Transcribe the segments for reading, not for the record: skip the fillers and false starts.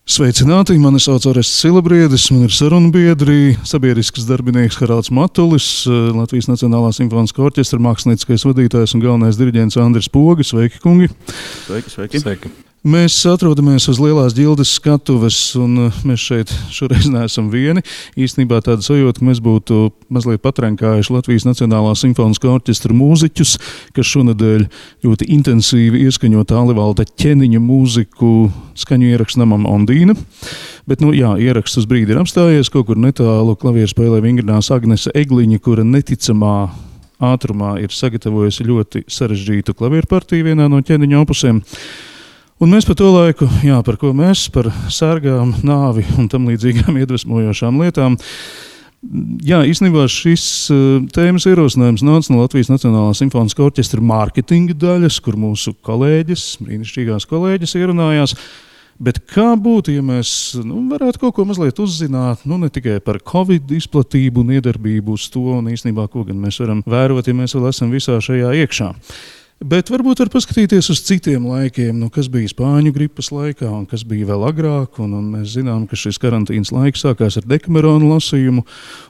Sveicināti, mani sauc Orests Silabriedis, man ir sarunbiedri, sabiedrisks darbinieks Haralds Matulis, Latvijas Nacionālā simfoniskā orķestra mākslinieckais vadītājs un galvenais diriģents Andris Poga. Sveiki, kungi! Sveiki! Mēs atrodamies uz Lielās ģildes skatuves, un mēs šeit šoreiz neesam vieni. Īstenībā tāda sajūta, ka mēs būtu mazliet patrenkājuši Latvijas Nacionālā simfoniskā orķestra mūziķus, kas šonadēļ ļoti intensīvi ieskaņo Tālivalda Ķeniņa mūziku skaņu ierakstu namam Ondīna. Bet, ieraksts uz brīdi ir apstājies, kaut kur netālu klavieru spēlē vingrinās Agnese Egliņa, kura neticamā ātrumā ir sagatavojusi ļoti sarežģītu klavieru partiju vienā no Ķeniņa opusiem. Un mēs par to laiku, par ko mēs, par sērgām, nāvi un tam līdzīgām iedvesmojošām lietām. Īstenībā šis tēmas ierosinājums nāca no Latvijas Nacionālā simfoniskā orķestra mārketinga daļas, kur mūsu kolēģis, brīnišķīgās kolēģis ierunājās. Bet kā būtu, ja mēs varētu kaut ko mazliet uzzināt, ne tikai par Covid izplatību un iedarbību uz to, un īstenībā, ko gan mēs varam vērot, ja mēs vēl esam visā šajā iekšā. Bet varbūt var paskatīties uz citiem laikiem, kas bija Spāņu gripas laikā un kas bija vēl agrāk. Un mēs zinām, ka šis karantīnas laiks sākās ar Dekamerona lasījumu,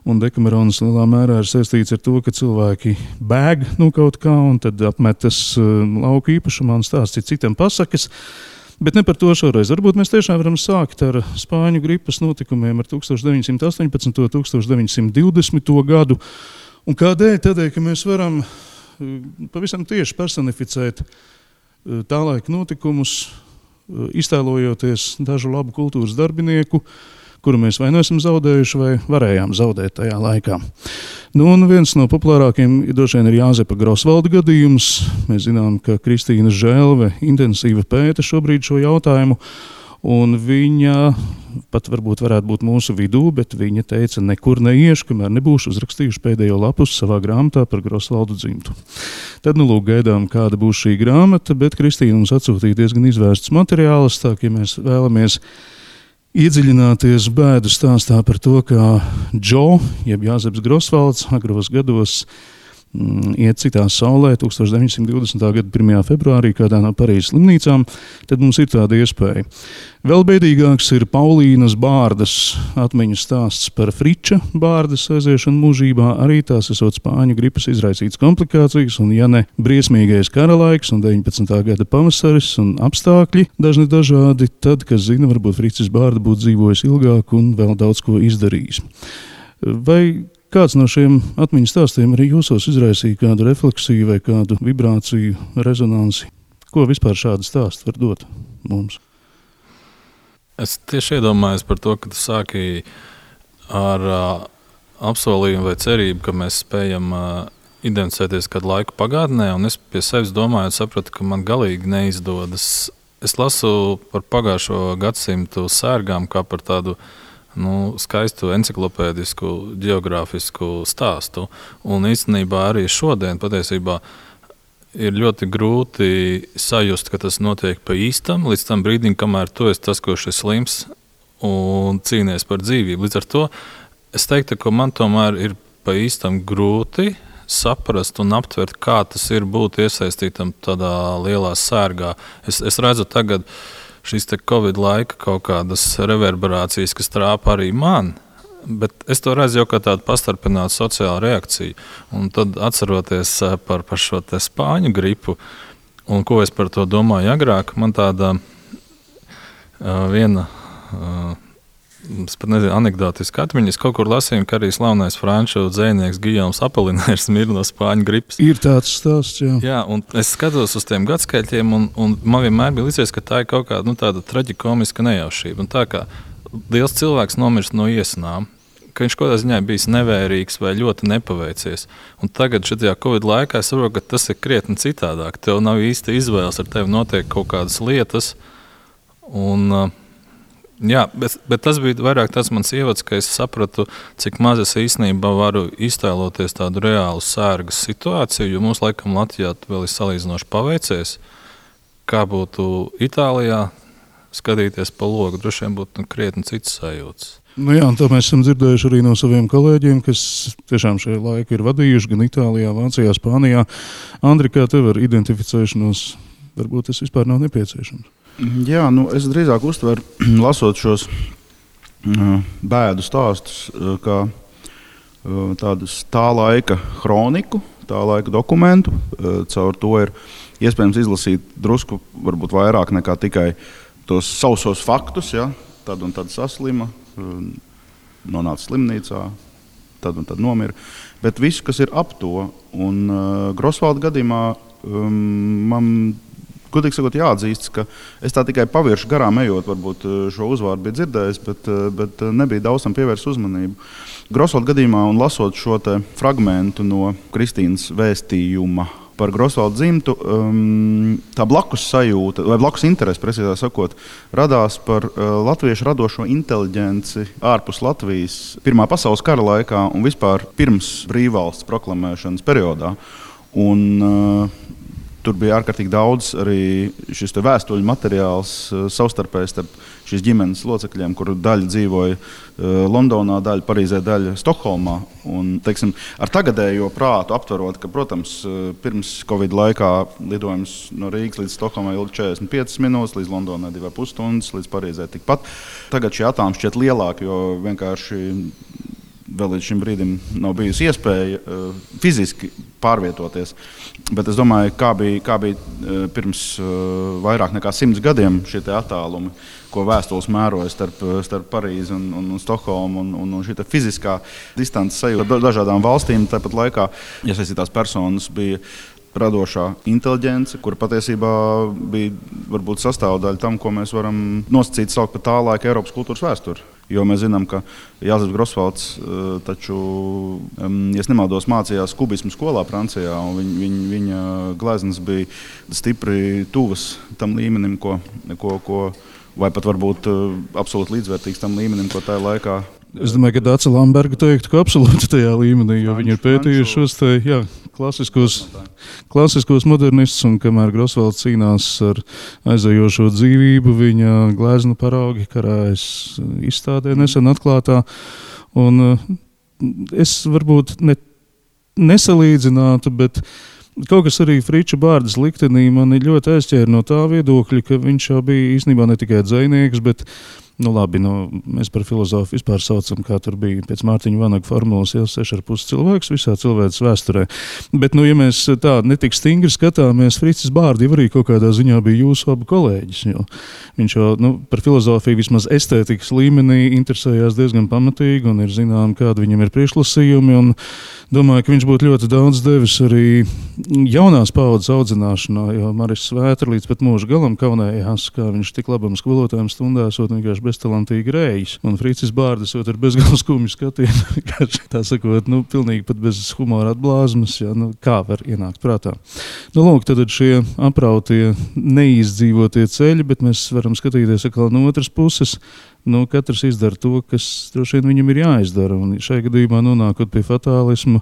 un Dekameronas lielā mērā ir saistīts ar to, ka cilvēki bēg no kaut kā un tad apmetas lauku īpašumā un stāsts citam pasakas. Bet ne par to šoreiz. Varbūt mēs tiešām varam sākt ar Spāņu gripas notikumiem ar 1918. un 1920. gadu. Un kādēļ? Tādēļ, ka mēs varam pavisam tieši personificēt tā laika notikumus, iztēlojoties dažu labu kultūras darbinieku, kuru mēs vai nu esam zaudējuši, vai varējām zaudēt tajā laikā. Un viens no populārākiem droši vien ir Jāzepa Grosvalda gadījums. Mēs zinām, ka Kristīna Žēlve intensīvi pēta šobrīd šo jautājumu, un viņa pat varbūt varētu būt mūsu vidū, bet viņa teica, nekur neiešu, kamēr nebūšu uzrakstījuši pēdējo lapus savā grāmatā par Grosvaldu dzimtu. Tad, gaidām, kāda būs šī grāmata, bet Kristīna mums atsūtīja diezgan izvērstus materiālus, tā ka, ja mēs vēlamies iedziļināties bēdu stāstā par to, kā Džo, jeb Jāzeps Grosvalds, agros gados iet citā saulē 1920. gada 1. februārī kādā no Parīzes slimnīcām, tad mums ir tāda iespēja. Vēl bēdīgāks ir Paulīnas Bārdas atmiņu stāsts par Friča Bārdas aiziešanu mūžībā, arī tās esot Spāņu gripas izraisītas komplikācijas, un ja ne briesmīgais karalaiks un 19. gada pavasaris un apstākļi dažādi, tad, kas zina, varbūt Fricis Bārda būtu dzīvojis ilgāk un vēl daudz ko izdarījis. Vai kāds no šiem atmiņu stāstiem arī jūsos izraisīja kādu refleksiju vai kādu vibrāciju, rezonansi? Ko vispār šādi stāsti var dot mums? Es tieši iedomājos par to, ka tu sāki ar apsolījumu vai cerību, ka mēs spējam identificēties kādu laiku pagātnē, un es pie sevis domāju, sapratu, ka man galīgi neizdodas. Es lasu par pagājušo gadsimtu sērgām kā par tādu skaistu enciklopēdisku, geogrāfisku stāstu. Un īstenībā arī šodien patiesībā ir ļoti grūti sajust, ka tas notiek pa īstam, līdz tam brīdim, kamēr tu esi tas, kurš ir slims un cīnies par dzīvību. Līdz ar to es teiktu, ka man tomēr ir pa īstam grūti saprast un aptvert, kā tas ir būt iesaistītam tādā lielā sērgā. Es redzu tagad šīs Covid laika kaut kādas reverberācijas, kas trāpa arī man, bet es to redzu jau kā tādu pastarpinātu sociālu reakciju. Un tad atceroties par šo Spāņu gripu, un ko es par to domāju agrāk, man tāda viena anekdotiska atmiņa. Es kaut kur lasīju, ka arī slavenais franču dzejnieks Gijoms Apolinērs mir no Spāņu gripas. Ir tāds stāsts, jā. Jā, un es skatos uz tiem gadskaitļiem, un man vienmēr bija licies, ka tā ir kaut kāda tāda traģikomiska nejaušība. Un tā kā liels cilvēks nomirst no iesanām, ka viņš kaut kādā ziņā bijis nevērīgs vai ļoti nepaveicies. Un tagad šajā Covid laikā es saprotu, ka tas ir krietni citādāk. Tev nav īsti izvēles, ar tevi notiek kaut kādas lietas. Un bet tas bija vairāk tas mans ievads, ka es sapratu, cik maz es īstenībā varu iztēloties tādu reālu sērgas situāciju, jo mums laikam Latvijā vēl ir salīdzinoši paveicies. Kā būtu Itālijā skatīties pa logu, droši vien būtu krietni cits sajūts. Nu jā, un to mēs esam dzirdējuši arī no saviem kolēģiem, kas tiešām šajā laiku ir vadījuši gan Itālijā, Vācijā, Spānijā. Andri, kā tev ar identificēšanos, varbūt tas vispār nav nepieciešams? Jā, es drīzāk uztveru, lasot šos bēdu stāstus, kā tādus tā laika kroniku, tā laika dokumentu. Caur to ir iespējams izlasīt drusku varbūt vairāk nekā tikai tos sausos faktus, ja? Tad un tad saslima, nonāca slimnīcā, tad un tad nomira. Bet visu, kas ir ap to, un Grosvalda gadījumā man, godīgi sakot, jāatzīst, ka es tā tikai pavirši garām ejot, varbūt šo uzvārdu bija dzirdējis, bet nebija daudz tam pievērst uzmanību. Grosvalda gadījumā un lasot šo te fragmentu no Kristīnas vēstījuma par Grosvalda dzimtu, tā blakus sajūta, vai blakus interese, precīzāk sakot, radās par latviešu radošo inteliģenci ārpus Latvijas Pirmā pasaules kara laikā un vispār pirms brīvvalsts proklamēšanas periodā. Un tur bija ārkārtīgi daudz arī šis vēstuļu materiāls savstarpēji starp šīs ģimenes locekļiem, kur daļa dzīvoja Londonā, daļa Parīzē, daļa Stokholmā. Un, teiksim, ar tagadējo prātu aptverot, ka, protams, pirms Covid laikā lidojums no Rīgas līdz Stokholmai ilga 45 minūtes, līdz Londonai 2,5 stundas, līdz Parīzē tikpat. Tagad šie attālumi šķiet lielāki, jo vienkārši vēl līdz šim brīdim nav bijusi iespēja fiziski pārvietoties. Bet es domāju, kā bija pirms vairāk nekā 100 gadiem šie attālumi, ko vēstules mēroja starp Parīzi un Stokholmu, un šī fiziskā distances sajūta dažādām valstīm. Tāpat laikā iesaistītās personas bija radošā inteliģence, kura patiesībā bija varbūt sastāvdaļa tam, ko mēs varam nosacīt saukt par tā laika Eiropas kultūras vēsturi. Jo mēs zinām, ka Jāzeps Grosvalds taču, ja nemaldos, mācījās kubismu skolā Francijā, un viņa gleznas bija stipri tuvas tam līmenim, ko vai pat varbūt absolūti līdzvērtīgs tam līmenim, ko tajā laikā. Es domāju, ka Dāca Lamberga teiktu, ka absolūti tajā līmenī, jo viņi ir pētījuši šos klasiskos modernistus, un kamēr Grosvalds cīnās ar aizejošo dzīvību, viņa gleznu paraugi karājas izstādē nesen atklātā. Un es varbūt nesalīdzinātu, bet kaut kas arī Friča Bārdas liktenī mani ļoti aizķēra no tā viedokļa, ka viņš jau bija īstenībā ne tikai dzejnieks, bet mēs par filozofu vispār saucam, kā tur bija pēc Mārtiņa Vanaga formulas, 6,5 cilvēks visā cilvēces vēsturē. Bet, ja mēs tā netik stingri skatāmies, Fricis Bārdi arī kaut kādā ziņā bija jūsu abu kolēģis, jo viņš jau par filozofiju vismaz estētikas līmenī interesējās diezgan pamatīgi, un ir zinām, kādi viņam ir priekšlasījumi, un domāju, ka viņš būtu ļoti daudz devis arī jaunās paudzes audzināšanā, jo Maris Svētra līdz pat mūža galam kaunējās, kā viņš tik labam skolotājiem stundās, vienkārši beztalantīgi rējis. Un Fricis Bārdas ar bezgalīgi skumju skatienu, tā sakot, pilnīgi pat bez humora atblāzmas, kā var ienākt prātā. Lūk, tad šie aprautie neizdzīvotie ceļi, bet mēs varam skatīties atkal no otras puses. Katrs izdara to, kas droši vien viņam ir jāizdara. Un šajā gadījumā nonākot pie fatālismu,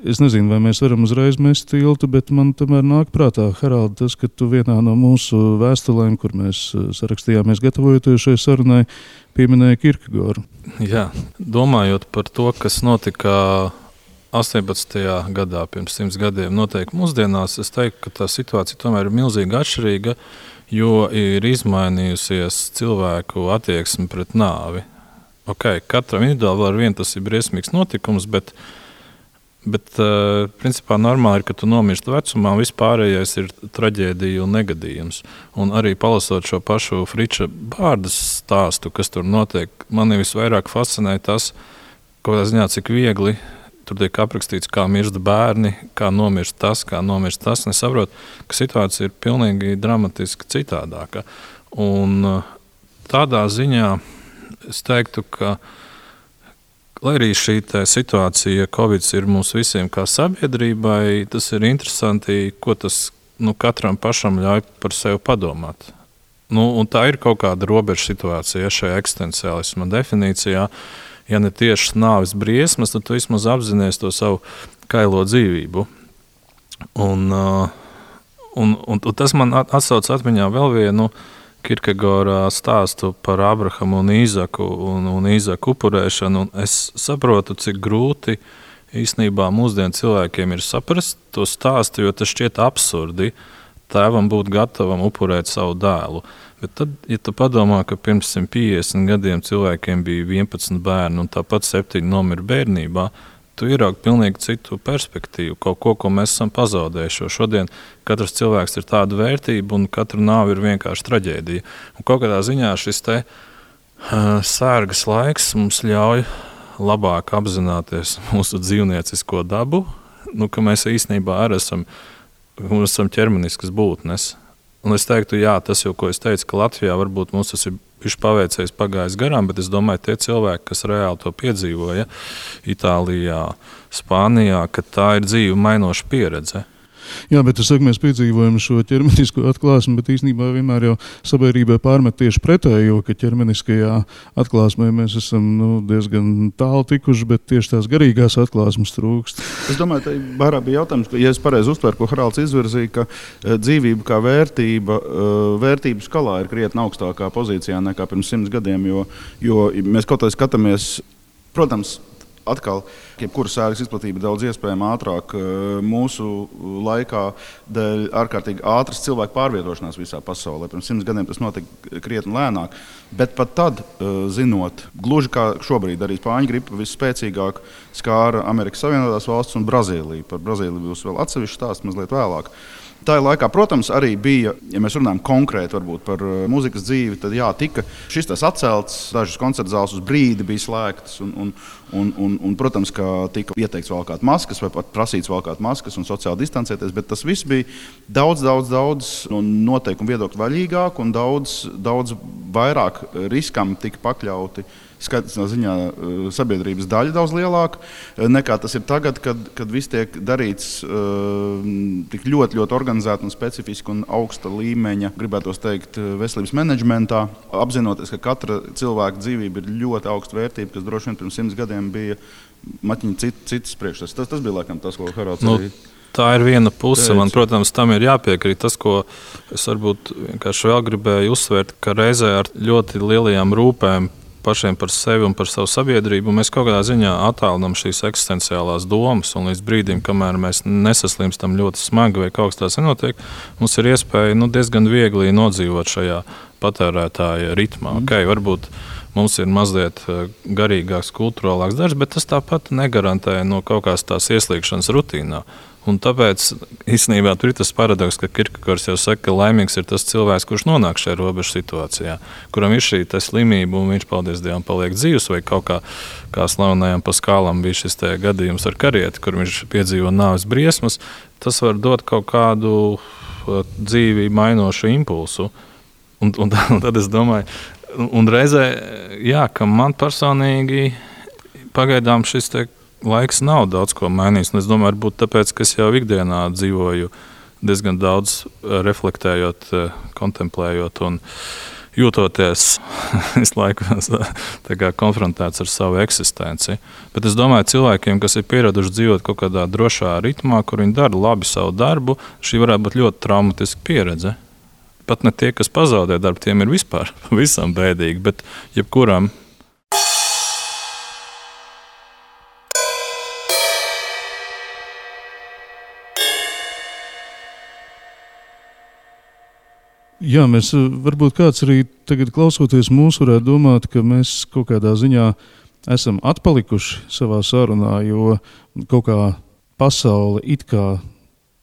es nezinu, vai mēs varam uzreiz mest tiltu, bet man tomēr nāk prātā, Haraldi, tas, ka tu vienā no mūsu vēstulēm, kur mēs sarakstījāmies gatavojoties šai sarunai, pieminēji Kierkegoru. Jā, domājot par to, kas notika 18. gadā, pirms 100 gadiem, noteikti mūsdienās, es teiktu, ka tā situācija tomēr ir milzīgi atšķirīga, jo ir izmainījusies cilvēku attieksme pret nāvi. Katram individuāli ar vienu tas ir briesmīgs notikums, bet principā normāli ir, ka tu nomirsti vecumā, un vispārējais ir traģēdija un negadījums. Un arī palasot šo pašu Friča Bārdas stāstu, kas tur notiek, mani visvairāk fascinē tas, kādā ziņā, cik viegli tur tiek aprakstīts, kā mirst bērni, kā nomirst tas. Nesaprot, ka situācija ir pilnīgi dramatiski citādāka. Un tādā ziņā es teiktu, ka lai arī šī situācija, Covid ir mums visiem kā sabiedrībai, tas ir interesanti, ko tas katram pašam ļauj par sevi padomāt. Un tā ir kaut kāda robeža situācija šajā eksistenciālisma definīcijā. Ja ne tieši nāves briesmas, tad tu vismaz apzinies to savu kailo dzīvību. Un tas man atsauc atmiņā vēl vienu Kierkegaura stāstu par Abrahamu un Īzaku un Īzaku upurēšanu. Un es saprotu, cik grūti īstenībā mūsdienu cilvēkiem ir saprast to stāstu, jo tas šķiet absurdi tēvam būt gatavam upurēt savu dēlu. Bet tad, ja tu padomā, ka pirms 150 gadiem cilvēkiem bija 11 bērni un tāpat 7 nomira bērnībā, tu ieraugi pilnīgi citu perspektīvu, kaut ko mēs esam pazaudējuši. Šodien katrs cilvēks ir tāda vērtība un katra nāve ir vienkārši traģēdija. Un kaut kādā ziņā šis te sērgas laiks mums ļauj labāk apzināties mūsu dzīvniecisko dabu, ka mēs īstenībā arī esam ķermeniskas būtnes. Un es teiktu, jā, tas jau, ko es teicu, ka Latvijā varbūt mums tas ir paveicies pagājis garām, bet es domāju, tie cilvēki, kas reāli to piedzīvoja Itālijā, Spānijā, ka tā ir dzīve mainoša pieredze. Jā, bet es saku, mēs piedzīvojam šo ķermenisko atklāsmi, bet īstenībā vienmēr jau sabiedrībai pārmet tieši pretējo, ka ķermeniskajā atklāsmē mēs esam diezgan tālu tikuši, bet tieši tās garīgās atklāsmes trūkst. Es domāju, ka vairāk bija jautājums, ka, ja es pareizi uztveru, ko Haralds izvirzīja, ka dzīvība kā vērtība, vērtību skalā ir krietni augstākā pozīcijā nekā pirms 100 gadiem, jo mēs kaut kā skatāmies, protams, atkal, jebkura sērgas izplatība daudz iespējama ātrāk mūsu laikā dēļ ārkārtīgi ātras cilvēku pārvietošanās visā pasaulē. Pirms 100 gadiem tas notika krietni lēnāk, bet pat tad, zinot, gluži kā šobrīd arī spāņu gripa visspēcīgāk skāra Amerikas Savienotās valstis un Brazīliju. Par Brazīliju būs vēl atsevišķi stāsts mazliet vēlāk. Tā laikā, protams, arī bija, ja mēs runājam konkrēti par mūzikas dzīvi, tad jā, tika šis tas atcelts, dažas koncerta zāles uz brīdi bija slēgtas un protams, ka tika ieteikts valkāt maskas vai pat prasīts valkāt maskas un sociāli distancēties, bet tas viss bija daudz noteikumu viedokļu vaļīgāk un daudz vairāk riskam tika pakļauti. Skaitā ziņā sabiedrības daļa daudz lielāka nekā tas ir tagad, kad viss tiek darīts tik ļoti organizēti un specifiski un augsta līmeņa, gribētos teikt, veselības menedžmentā, apzinoties, ka katra cilvēka dzīvība ir ļoti augsta vērtība, kas droši vien pirms 100 gadiem bija maķiņa citas priekšstats. Tas bija laikam tas, ko Haralds arī. Tā ir viena puse. Man, protams, tam ir jāpiekrīt. Tas, ko es varbūt vienkārši vēl gribēju uzsvērt, ka reizē ar ļoti lielajām rūpēm pašiem par sevi un par savu sabiedrību, mēs kaut kādā ziņā attālinām šīs eksistenciālās domas, un līdz brīdim, kamēr mēs nesaslimstam ļoti smagi vai kaut kas tāds nenotiek, mums ir iespēja diezgan viegli nodzīvot šajā patērētāja ritmā. Varbūt mums ir mazliet garīgāks, kulturālāks darbs, bet tas tāpat negarantē no kaut kādas tās ieslīgšanas rutīnā. Un tāpēc īstenībā tur ir tas paradoks, ka Kierkegaurs jau saka, ka laimīgs ir tas cilvēks, kurš nonāk šajā robežu situācijā, kuram ir šī slimība un viņš, paldies Dievam, paliek dzīvs, vai kaut kā slavenajam Paskālam bija šis gadījums ar karieti, kur viņš piedzīvo nāves briesmas. Tas var dot kaut kādu dzīvi mainošu impulsu. Un tad es domāju, un reizē, jā, ka man personīgi pagaidām šis laiks nav daudz ko mainījis. Es domāju, varbūt tāpēc, ka es jau ikdienā dzīvoju diezgan daudz reflektējot, kontemplējot un jūtoties visu laiku konfrontēts ar savu eksistenci. Bet es domāju, cilvēkiem, kas ir pieraduši dzīvot kaut kādā drošā ritmā, kur viņi dara labi savu darbu, šī varētu būt ļoti traumatiska pieredze. Pat ne tie, kas pazaudē darbu, tiem ir vispār visam bēdīgi, bet jebkuram. Jā, mēs varbūt kāds arī tagad klausoties mūs varētu domāt, ka mēs kaut kādā ziņā esam atpalikuši savā sarunā, jo kaut kā pasaule it kā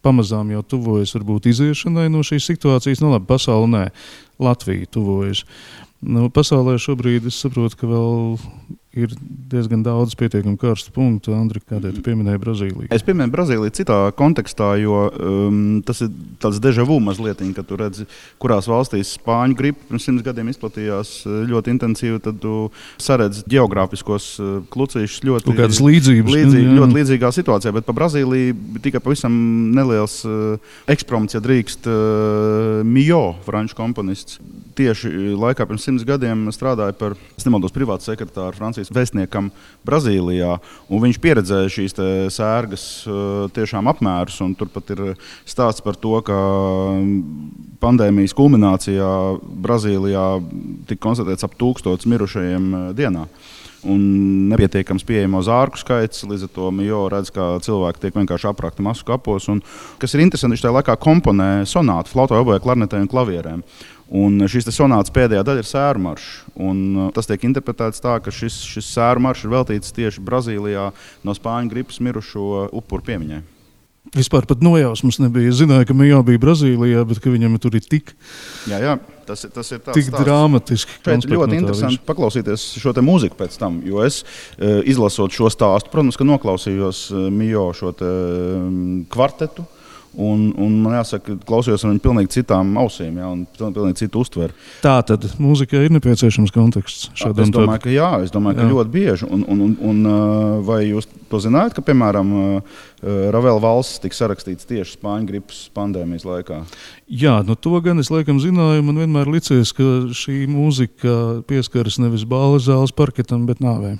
pamazām jau tuvojas varbūt iziešanai no šīs situācijas. Labi, pasaule nē, Latvija tuvojas. Pasaulē šobrīd es saprotu, ka vēl ir diezgan daudz pietiekami karstu punktu. Andri, kādēļ tu pieminēji Brazīliju? Es pieminēju Brazīliju citā kontekstā, jo tas ir tāds déjà vu mazliet, kad tu redzi, kurās valstīs spāņu gripa pirms 100 gadiem izplatījās ļoti intensīvi, tad tu saredzi geogrāfiskos klucīšus ļoti ļoti līdzīgā situācijā, bet pa Brazīliju tikai pavisam neliels ekspromts, ja drīkst, Mio, franču komponists. Tieši laikā pirms 100 gadiem strādāja par, es nemaldos, privātu sekretāru Francijas vēstniekam Brazīlijā, un viņš pieredzēja šīs sērgas tiešām apmērus, un tur pat ir stāsts par to, ka pandēmijas kulminācijā Brazīlijā tika konstatēts ap 1000 mirušajiem dienā. Un nepietiekams pieejamo zārku skaits, līdz ar to Mio redz, ka cilvēki tiek vienkārši aprakti masu kapos. Un, kas ir interesanti, viņš tajā laikā komponē sonātu, flautai, obojai, klarnetei un klavierēm. Un šīs sonātas pēdējā daļa ir sēru maršs. Tas tiek interpretēts tā, ka šis sēru maršs ir veltīts tieši Brazīlijā no spāņu gripas mirušo upuru piemiņai. Vispār pat nojausmas nebija. Es zināju, ka Mio bija Brazīlijā, bet ka viņam tur ir tik, tas ir tāds tik dramatiski. Šeit ļoti interesanti paklausīties šo te mūziku pēc tam, jo es izlasot šo stāstu, protams, ka noklausījos Mio šo te kvartetu. Un man jāsaka, klausījos ar viņu pilnīgi citām ausīm, un pilnīgi citu uztveri. Tā tad mūzikai ir nepieciešams konteksts šādam tādam? Es domāju, ka ļoti bieži. Un vai jūs to zinājāt, ka, piemēram, Ravela valsts tika sarakstīts tieši spāņu gripas pandēmijas laikā? Jā, to gan es laikam zināju. Man vienmēr licies, ka šī mūzika pieskaras nevis bāles zāles parketam, bet nāvē.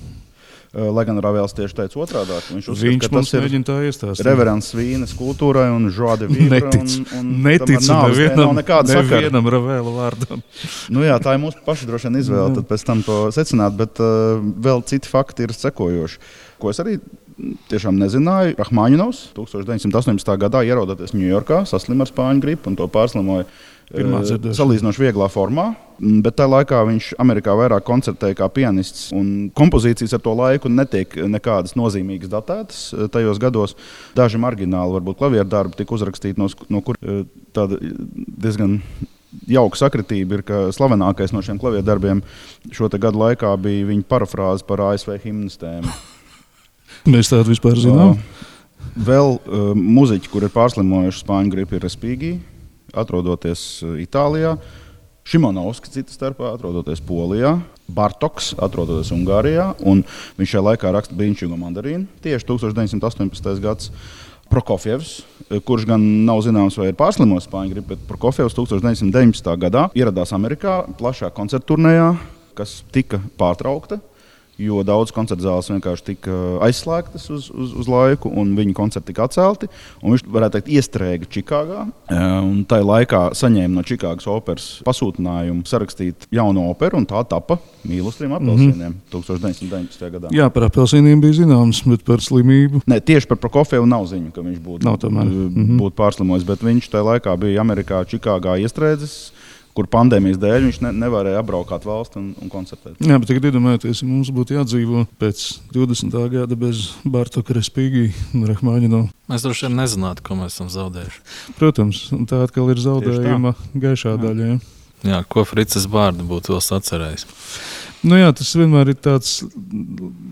Lai gan Ravels tieši teica otrādāk. Viņš uzskata, ka tas ir reverends Vīnes kultūrai un joie de vivre. Neticu nevienam Ravela vārdam. Jā, tā ir mūsu paša droši vien izvēle, tad pēc tam to secināt, bet vēl citi fakti ir sekojoši. Ko es arī tiešām nezināju. Rahmaņinovs 1918. gadā ierodoties Ņujorkā, saslima ar spāņu gripu un to pārslimoja salīdzinoši vieglā formā, bet tajā laikā viņš Amerikā vairāk koncertēja kā pianists, un kompozīcijas ar to laiku netiek nekādas nozīmīgas datētas tajos gados. Daži margināli, varbūt klavieru darbi tika uzrakstīti, no kur tāda diezgan jauka sakritība ir, ka slavenākais no šiem klavieru darbiem šo te gadu laikā bija viņa parafrāze par ASV himnas tēmu. Mēs tādu vispār zinām. Vēl muziķi, kur ir pārslimojuši spāņu gripu, ir Respighi, atrodoties Itālijā, Šimonovski cita starpā, atrodoties Polijā, Bartoks, atrodoties Ungārijā, un viņš šajā laikā raksta Brīnišķīgo mandarīnu, tieši 1918. gads. Prokofjevs, kurš gan nav zināms, vai ir pārslimojis spāņu gripu, bet Prokofjevs 1919. gadā ieradās Amerikā plašā koncertturnējā, kas tika pārtraukta, jo daudz koncertzāles vienkārši tika aizslēgtas uz laiku, un viņa koncerti tika atcelti. Viņš, varētu teikt, iestrēga Čikāgā, un tajā laikā saņēma no Čikāgas operas pasūtinājumu sarakstīt jaunu operu, un tā tapa Mīlu uz 3 apelsīniem 1919. gadā. Jā, par apelsīniem bija zināms, bet par slimību. Nē, tieši par Prokofjevu nav ziņu, ka viņš būtu pārslimojis, bet viņš tajā laikā bija Amerikā, Čikāgā iestrēdzis, kur pandēmijas dēļ viņš nevarēja apbraukāt valsti un koncertēt. Jā, bet tagad iedomājieties, ja mums būtu jādzīvo pēc 20. gada bez Bartoka, Respighi un Rahmaņinova. Mēs droši vien nezinātu, ko mēs esam zaudējuši. Protams, un tā atkal ir zaudējuma gaišā daļa. Jā, ko Fricis Bārda būtu vēl sacerējis? Jā, tas vienmēr ir tāds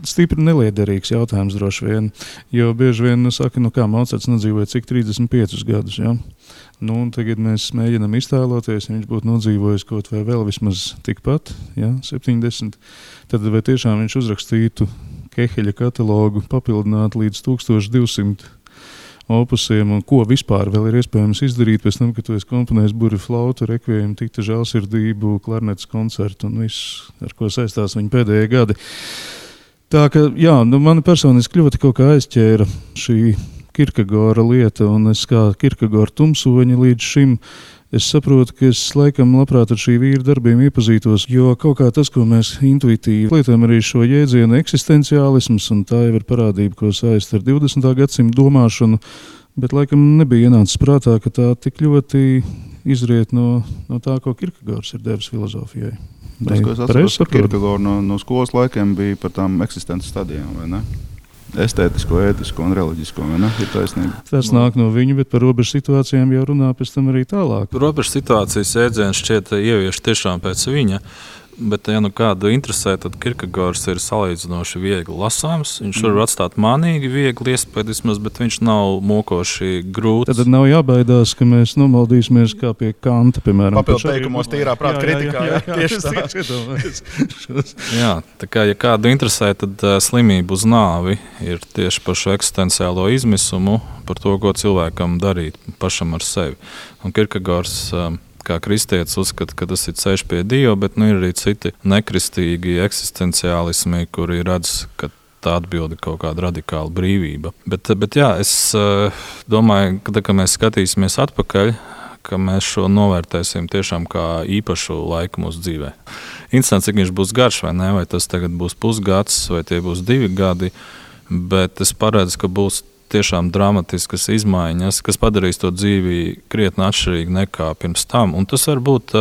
stipri neliederīgs jautājums droši vien, jo bieži vien saka, kā Mocarts nodzīvoja cik 35 gadus, jā. Tagad mēs mēģinām iztēloties, ja viņš būtu nodzīvojis kaut vai vēl vismaz tikpat, 70, tad vai tiešām viņš uzrakstītu Keheļa katalogu papildināt līdz 1200 opusiem, un ko vispār vēl ir iespējams izdarīt pēc tam, kad tu esi komponējis burvi flautu, rekviejumu, tikta žēlsirdību, klarnetes koncertu un viss, ar ko saistās viņa pēdējie gadi. Tā ka, mani personiski ļoti kaut kā aizķēra šī Kierkegora lieta, un es kā Kierkegora tumsoņa līdz šim, es saprotu, ka es laikam labprāt ar šī vīra darbiem iepazītos, jo kaut kā tas, ko mēs intuitīvi lietojam arī šo jēdzienu eksistenciālisms, un tā jau ir parādība, ko saist ar 20. gadsimta domāšanu, bet laikam nebija ienācis prātā, ka tā tik ļoti izriet no tā, ko Kierkegors ir devis filozofijai. Tas, ko es atceros par Kierkegoru no skolas laikiem, bija par tām eksistences stadijām, vai ne? Estētisko, ētisko un reliģisko, vai ne? Ir taisnība. Tas nāk no viņa, bet par robežu situācijām jau runā pēc tam arī tālāk. Robežu situācijas jēdziens šķiet ievieš tiešām pēc viņa, bet ja kādu interesē, tad Kierkegors ir salīdzinoši viegli lasāms. Viņš var atstāt manīgi viegli iespējas, bet viņš nav mokoši grūts. Tad nav jābaidās, ka mēs nomaldīsimies kā pie Kanta, piemēram. Papildu teikumos tīrā prāta kritikā. Tieši tā. Jā, tā kā ja kādu interesē, tad slimība uz nāvi ir tieši par šo eksistenciālo izmisumu, par to, ko cilvēkam darīt pašam ar sevi. Un Kierkegors kā kristietis uzskata, ka tas ir ceļš pie Dieva, bet ir arī citi nekristīgi eksistenciālismi, kuri redz, ka tā atbilde kaut kāda radikāla brīvība. Bet jā, es domāju, ka mēs skatīsimies atpakaļ, ka mēs šo novērtēsim tiešām kā īpašu laiku mūsu dzīvē. Interesanti, cik viņš būs garš, vai ne? Vai tas tagad būs pusgads, vai tie būs 2 gadi, bet es paredzu, ka būs tiešām dramatiskas izmaiņas, kas padarīs to dzīvi krietni atšķirīgi nekā pirms tam. Un tas varbūt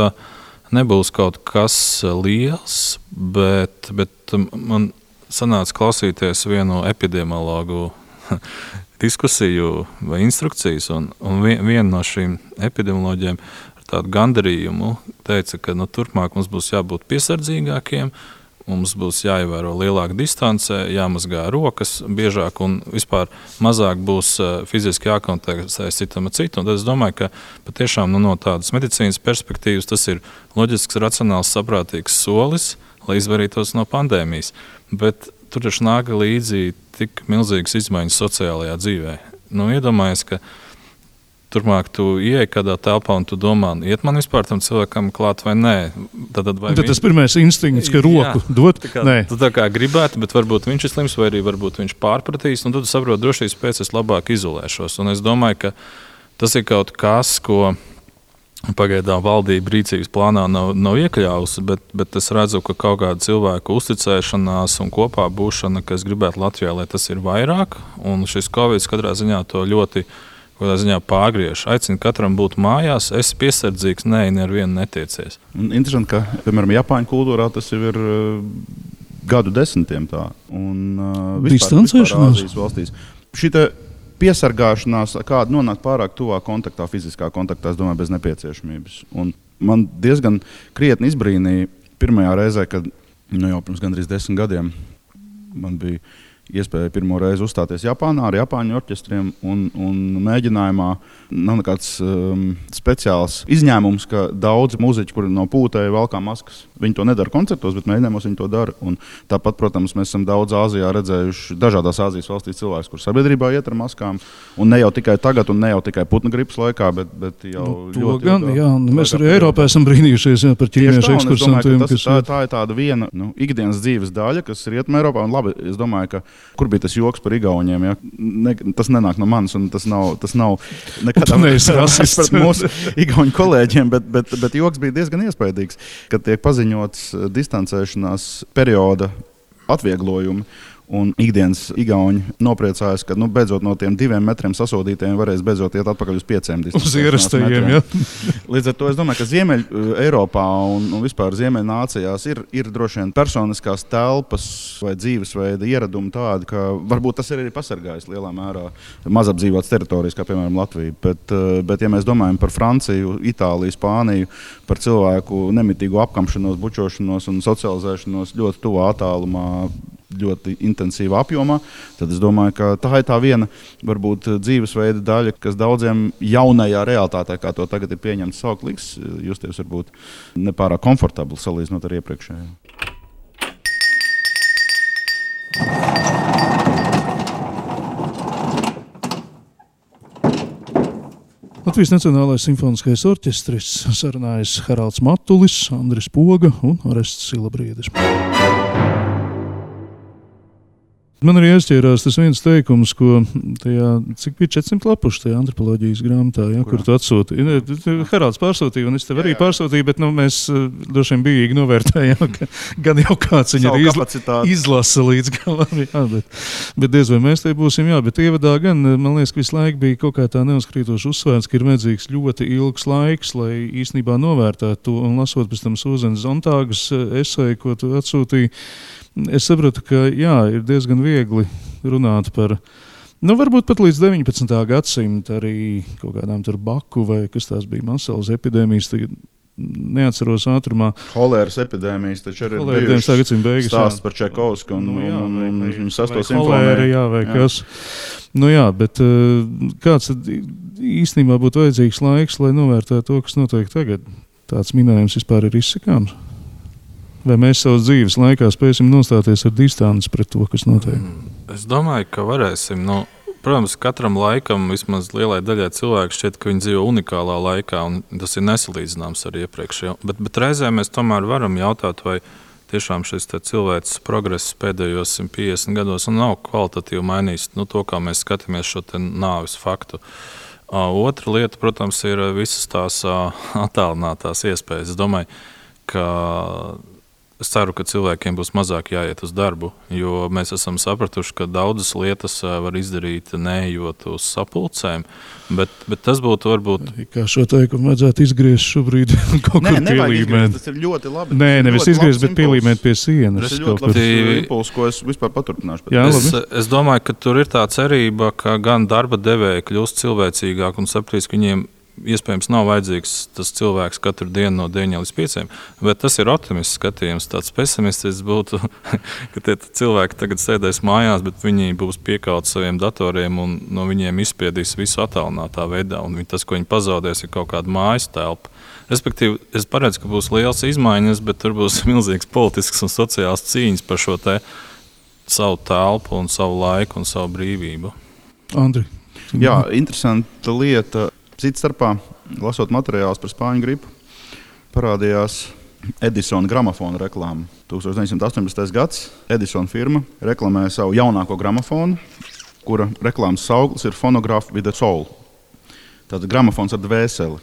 nebūs kaut kas liels, bet man sanāca klausīties vienu epidemiologu diskusiju vai instrukcijas, un viena no šīm epidemioloģiem ar tādu gandarījumu teica, ka turpmāk mums būs jābūt piesardzīgākiem, mums būs jāievēro lielāka distance, jāmazgā rokas biežāk un vispār mazāk būs fiziski jākontaktēs citam ar citu. Un tad es domāju, ka patiešām no tādas medicīnas perspektīvas tas ir loģisks, racionāls, saprātīgs solis, lai izvairītos no pandēmijas. Bet tur taču nāk līdzi tik milzīgas izmaiņas sociālajā dzīvē. Iedomājies, ka turpmāk tu ieej kādā telpā un tu domā, iet man vispār tam cilvēkam klāt vai nē. Tad tas pirmais instinkts, ka roku dot? Nē. Tu tā kā gribētu, bet varbūt viņš ir slims vai arī varbūt viņš pārpratīs, un tad tu saproti, drošības pēc es labāk izolēšos. Un es domāju, ka tas ir kaut kas, ko pagaidām valdība rīcības plānā nav iekļāvusi, bet es redzu, ka kaut kāda cilvēku uzticēšanās un kopā būšana, kas gribētu Latvijā, lai tas ir vairāk, un šis Covid katrā ziņā to ļoti pārgriež. Aicinu katram būt mājās, esi piesardzīgs, nevienu netiecies. Interesanti, ka, piemēram, Japāņu kultūrā tas jau ir gadu desmitiem tā. Un distancēšanās Āzijas valstīs. Šita piesargāšanās, kāda nonāk pārāk tuvā kontaktā, fiziskā kontaktā, es domāju, bez nepieciešamības. Un man diezgan krietni izbrīnīja pirmajā reizē, kad jau pirms gandrīz 10 gadiem man bija iespēja pirmo reizi uzstāties Japānā ar Japāņu orķestriem, un mēģinājumā nav nekāds speciāls izņēmums, ka daudzi muziķi, kuri no pūtēja valkā maskas, viņi to nedara koncertos, bet mēģinājumos viņi to dara. Un tāpat, protams, mēs esam daudz Āzijā redzējuši dažādās Āzijas valstīs cilvēkus, kur sabiedrībā iet ar maskām, un ne jau tikai tagad, un ne jau tikai putnu gripas laikā, bet jau ļoti. Mēs arī Eiropā esam brīnījušies par ķīniešu ekskursantiem. Tā ir tāda viena ikdienas dzīves daļa, kas ir Rietumē Eiropā, un labi, es domāju, ka kur bija tas joks par igauņiem, ja? Tas nenāk no manis, un tas nav nekādā veidā pret mūsu igauņu kolēģiem, bet joks bija diezgan iespaidīgs, kad tiek paziņots distancēšanās perioda atvieglojumi. Un ikdienas igauņi nopriecājas, ka beidzot no tiem 2 metriem sasodītiem varēs beidzot iet atpakaļ uz 5 uz ierastajiem, ja? Līdz ar to es domāju, ka Ziemeļ Eiropā un vispār Ziemeļ nācijās ir droši vien personiskās telpas vai dzīvesveida ieradumi tādi, ka varbūt tas ir arī pasargājis lielā mērā mazapdzīvotas teritorijas, kā piemēram Latvija. Bet ja mēs domājam par Franciju, Itāliju, Spāniju, par cilvēku nemitīgu apkamšanos, bučošanos un socializēšanos ļoti tuvā attālumā, ļoti intensīvā apjomā, tad es domāju, ka tā ir tā viena varbūt dzīvesveida daļa, kas daudziem jaunajā realitātē, kā to tagad ir pieņemts saukt, liks justies varbūt nepārāk komfortabli salīdzinot ar iepriekšējo. Latvijas Nacionālais simfoniskais orķestris, sarunājas Haralds Matulis, Andris Poga un Orests Silabriedis. Man arī aizķērās tas viens teikums, ko tajā, cik bija 400 lapuši tajā antropoloģijas grāmatā, ja, kur tu atsūtīji. Haralds pārsūtīja, un es tev arī pārsūtīju, bet mēs droši vien bijīgi novērtējām, ka gan jau kāds viņu izlasa līdz galam. Jā, bet diez vai mēs te būsim, jā, bet ievadā gan, man liekas, ka visu laiku bija kaut kā tā neuzkrītoši uzsvērts, ka ir vajadzīgs ļoti ilgs laiks, lai īstenībā novērtētu to, un lasot pēc tam Sūzenes Zontāgas eseju, ko tu atsūtīji, es sapratu, ka jā, ir diezgan viegli runāt par, varbūt pat līdz 19. gadsimta arī kaut kādām tur Baku vai kas tās bija masalas epidēmijas, tagad neatceros ātrumā. Holēras epidēmijas, taču arī ir bijušas stāsts par Čaikovsku un viņu 6. simfoniju. Jā, vai kas. Jā, bet kāds tad īstenībā būtu vajadzīgs laiks, lai novērtētu to, kas notiek tagad? Tāds minējums vispār ir izsakāms? Vai mēs savas dzīves laikā spēsim nostāties ar distanci pret to, kas notiek? Es domāju, ka varēsim. Protams, katram laikam, vismaz lielai daļai cilvēku šķiet, ka viņi dzīvo unikālā laikā, un tas ir nesalīdzināms ar iepriekšējo. Bet reizē mēs tomēr varam jautāt, vai tiešām šis cilvēks progress pēdējos 150 gados nav kvalitatīvi mainījis to, kā mēs skatāmies šo nāves faktu. Otra lieta, protams, ir visas tās attālinātās iespējas. Es domāju, ka es ceru, ka cilvēkiem būs mazāk jāiet uz darbu, jo mēs esam sapratuši, ka daudzas lietas var izdarīt neejot uz sapulcēm, bet tas būtu varbūt... Kā šo teikumu vajadzētu izgriezt šobrīd kaut kur pielīmēt. Tas ir ļoti labi. Nē, nevis izgriezt, bet pielīmēt pie sienas. Tas ir ļoti labi impulss, ko es vispār paturpināšu. Jā, es domāju, ka tur ir tā cerība, ka gan darba devēji kļūst cilvēcīgāk un sapratīs, ka viņiem iespējams nav vajadzīgs tas cilvēks katru dienu no 9 līdz 5, bet tas ir optimists skatījums. Tāds pesimistisks būtu, ka tie cilvēki tagad sēdēs mājās, bet viņi būs piekauti saviem datoriem un no viņiem izspiedīs visu attālinātā veidā. Un tas, ko viņi pazaudēs, ir kaut kāda mājas telpa. Respektīvi, es paredzu, ka būs liels izmaiņas, bet tur būs milzīgs politisks un sociāls cīņas par šo te savu telpu un savu laiku un savu brīvību. Andri. Jā, interesanta lieta. Cits starpā, lasot materiālus par spāņu gripu, parādījās Edisona gramofona reklāma. 1918. gads Edisona firma reklamēja savu jaunāko gramofonu, kura reklāmas sauklis ir Phonograph with a Soul. Tātad gramofons ar dvēseli.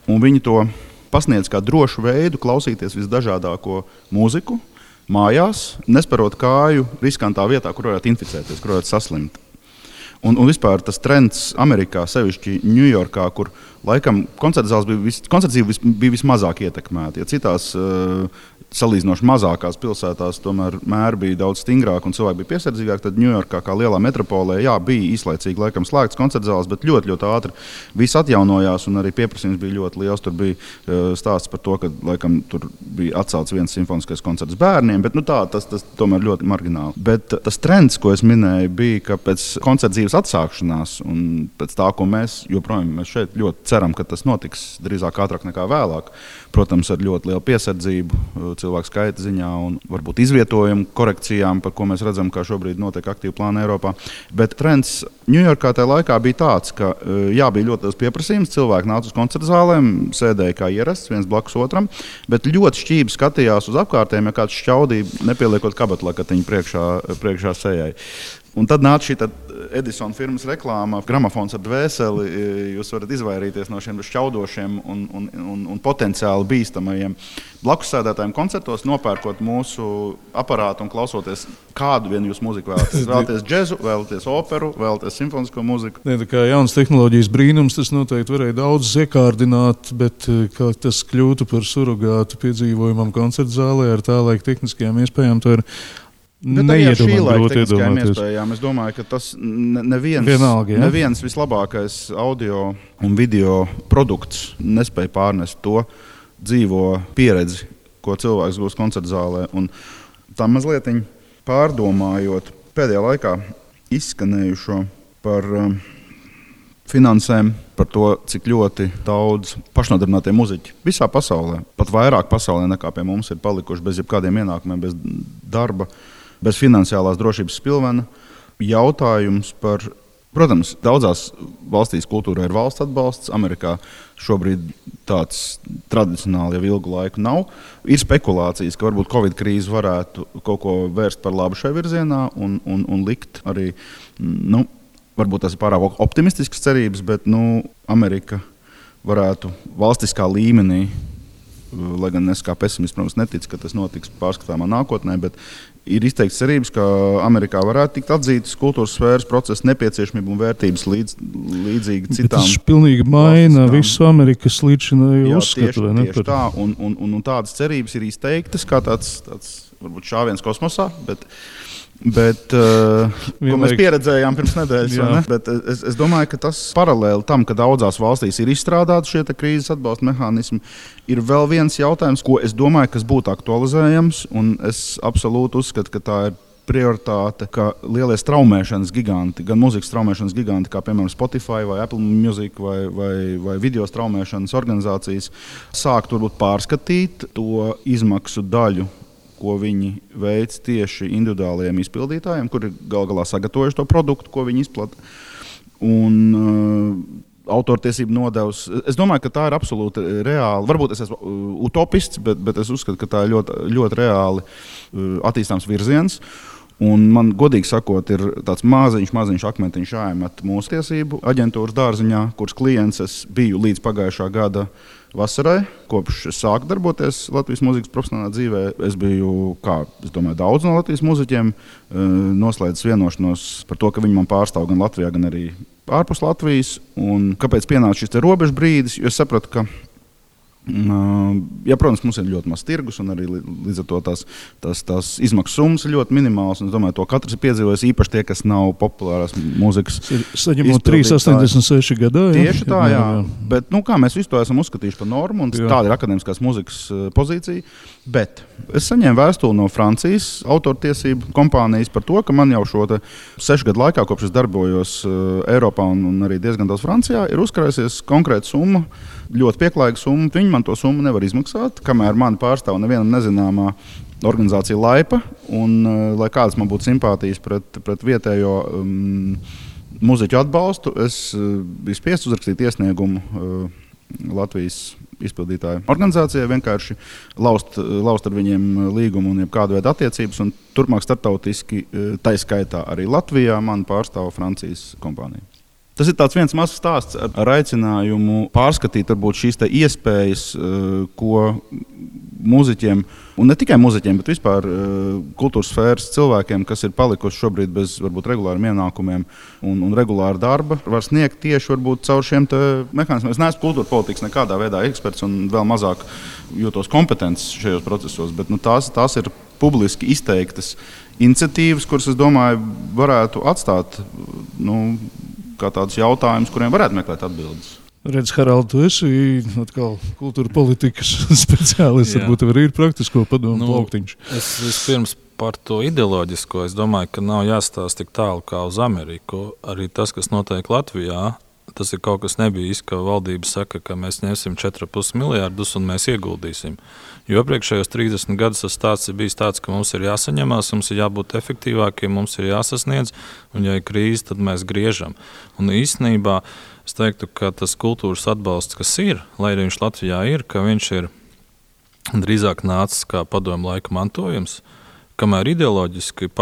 Un viņi to pasniedz kā drošu veidu klausīties visdažādāko mūziku mājās, nesperot kāju riskantā vietā, kur varētu inficēties, kur varētu saslimt. Un vispār tas trends Amerikā, sevišķi Ņujorkā, kur laikam koncertzāles bija vismazāk ietekmēti. Ja citās salīdzinoši mazākās pilsētās tomēr mēri bija daudz stingrāk un cilvēki bija piesardzīgāki, tad Ņujorkā kā lielā metropolē bija īslaicīgi laikam slēgts koncertzāles, bet ļoti, ļoti ātri viss atjaunojās un arī pieprasījums bija ļoti liels. Tur bija stāsts par to, ka laikam tur bija atcelts viens simfoniskais koncerts bērniem, bet tas tomēr ļoti margināli. Bet tas trends, ko es minēju, bija, ka pēc koncertdzīves atsākšanās un pēc tā, ko mēs joprojām šeit ļoti ceram, ka tas notiks drīzāk ātrāk nekā vēlāk, protams, ar ļoti lielu piesardzību cilvēku skaita ziņā un varbūt izvietojumu korekcijām, par ko mēs redzam, kā šobrīd notiek aktīvi plāni Eiropā. Bet trends Ņujorkā tajā laikā bija tāds, ka bija ļoti liels pieprasījums, cilvēki nāca uz koncertzālēm, sēdēja kā ierasts, viens blakus otram, bet ļoti šķīvi skatījās uz apkārtējiem, ja kāds šķaudīja, nepieliekot kabatlakatiņu priekšā sejai. Un tad nāca šī Edisona firmas reklāma, gramofons ar dvēseli. Jūs varat izvairīties no šiem šķaudošiem un potenciāli bīstamajiem blakus sēdētājiem koncertos, nopērkot mūsu aparātu un klausoties, kādu vien jūs mūziku vēlaties. Vēlaties džezu, vēlaties operu, vēlaties simfonisko mūziku. Tā kā jaunas tehnoloģijas brīnums, tas noteikti varēja daudz iekārdināt, bet kā tas kļūtu par surogātu piedzīvojumam koncertzālē ar tālaik tehniskajām iespējām, to ir neiedomāties. Es domāju, ka tas neviens vislabākais audio un video produkts nespēja pārnest to dzīvo pieredzi, ko cilvēks gūst koncertzālē. Un tā mazliet pārdomājot pēdējā laikā izskanējušo par finansēm, par to, cik ļoti daudz pašnodarbinātie muziķi visā pasaulē, pat vairāk pasaulē nekā pie mums ir palikuši bez jebkādiem ienākumiem, bez darba, bez finansiālās drošības spilvena. Jautājums par, protams, daudzās valstīs kultūrā ir valsts atbalsts. Amerikā šobrīd tāds tradicionāli jau ilgu laiku nav. Ir spekulācijas, ka varbūt Covid krīze varētu kaut ko vērst par labu šai virzienā un likt arī, varbūt tas ir pārāk optimistisks cerības, bet Amerika varētu valstiskā līmenī, lai gan es kā pesimists, protams, neticu, ka tas notiks pārskatāmā nākotnē, bet ir izteikts cerības, ka Amerikā varētu tikt atzītas kultūras sfēras procesa nepieciešamība un vērtības līdzīgi citām. Tas pilnīgi maina visu Amerikas līdzinēju uzskatu. Tieši tā, un tādas cerības ir izteiktas kā tāds varbūt šāviens kosmosā, bet ko mēs pieredzējām pirms nedēļas. Bet es domāju, ka tas paralēli tam, ka daudzās valstīs ir izstrādāti šie krīzes atbalsta mehānismi, ir vēl viens jautājums, ko es domāju, kas būtu aktualizējams, un es absolūti uzskatu, ka tā ir prioritāte, ka lielie straumēšanas giganti, gan mūzikas straumēšanas giganti, kā piemēram Spotify vai Apple Music vai video straumēšanas organizācijas, sāktu varbūt pārskatīt to izmaksu daļu, ko viņi veic tieši individuālajiem izpildītājiem, kuri gal galā sagatavojuši to produktu, ko viņi izplata. Un autortiesību nodevs. Es domāju, ka tā ir absolūti reāli. Varbūt es esmu utopists, bet es uzskatu, ka tā ir ļoti, ļoti reāli attīstāms virziens. Un man, godīgi sakot, ir tāds maziņš akmentiņš jāiemet mūsu tiesību aģentūras dārziņā, kuras klients es biju līdz pagājušā gada vasarai. Kopš es sāku darboties Latvijas mūzikas profesionālā dzīvē, es biju, daudz no Latvijas mūziķiem, noslēdzis vienošanos par to, ka viņi man pārstāv gan Latvijā, gan arī ārpus Latvijas. Un kāpēc pienāca šis robežu brīdis? Jo es sapratu, ka protams, mums ir ļoti maz tirgus, un arī līdz ar to tās izmaksu summas ir ļoti minimālas. Es domāju, to katrs ir piedzīvojis, īpaši tie, kas nav populārās mūzikas. Saņemot 3,86 gadā. Tieši tā, jā. Bet kā mēs visu to esam uzskatījuši par normu, un tāda ir akadēmiskās mūzikas pozīcija. Bet es saņēmu vēstuli no Francijas autortiesību kompānijas par to, ka man jau šo 6 gadu laikā, kopš es darbojos Eiropā un arī diezgan daudz Francijā, ir uzkrājusies konkrēta summa, ļoti pieklājīga summa. Viņi man to summu nevar izmaksāt, kamēr mani pārstāv nevienam nezināmā organizācija Laipa. Un, lai kādas man būtu simpātijas pret vietējo mūziķu atbalstu, es biju spiests uzrakstīt iesniegumu Latvijas izpildītāju organizācijai, vienkārši laust ar viņiem līgumu un kādu veidu attiecības. Un turpmāk starptautiski, tai skaitā arī Latvijā, man pārstāv Francijas kompānija. Tas ir viens mazs stāsts ar aicinājumu pārskatīt varbūt šīs iespējas, ko mūziķiem, un ne tikai mūziķiem, bet vispār kultūras sfēras cilvēkiem, kas ir palikuši šobrīd bez varbūt regulāriem ienākumiem un regulāra darba, var sniegt tieši varbūt caur šiem mehānismiem. Es neesmu kultūra politikas nekādā veidā eksperts un vēl mazāk jūtos kompetents šajos procesos, bet tās ir publiski izteiktas iniciatīvas, kuras, es domāju, varētu atstāt kā tādus jautājumus, kuriem varētu meklēt atbildes. Redz, Harald, tu esi atkal kultūra politikas speciālists, varbūt arī ir praktisko padomu plauktiņš. Es vispirms par to ideoloģisko, es domāju, ka nav jāstāsta tik tālu kā uz Ameriku. Arī tas, kas notiek Latvijā, tas ir kaut kas nebijis, ka valdība saka, ka mēs ņemsim 4,5 miljārdus un mēs ieguldīsim. Jo iepriekšējos 30 gadus tas stāsts ir bijis tāds, ka mums ir jāsaņemās, mums ir jābūt efektīvākiem, mums ir jāsasniedz, un ja ir krīze, tad mēs griežam. Un īstenībā es teiktu, ka tas kultūras atbalsts, kas ir, lai arī viņš Latvijā ir, ka viņš ir drīzāk nācis kā padomu laika mantojums, kamēr ideoloģiski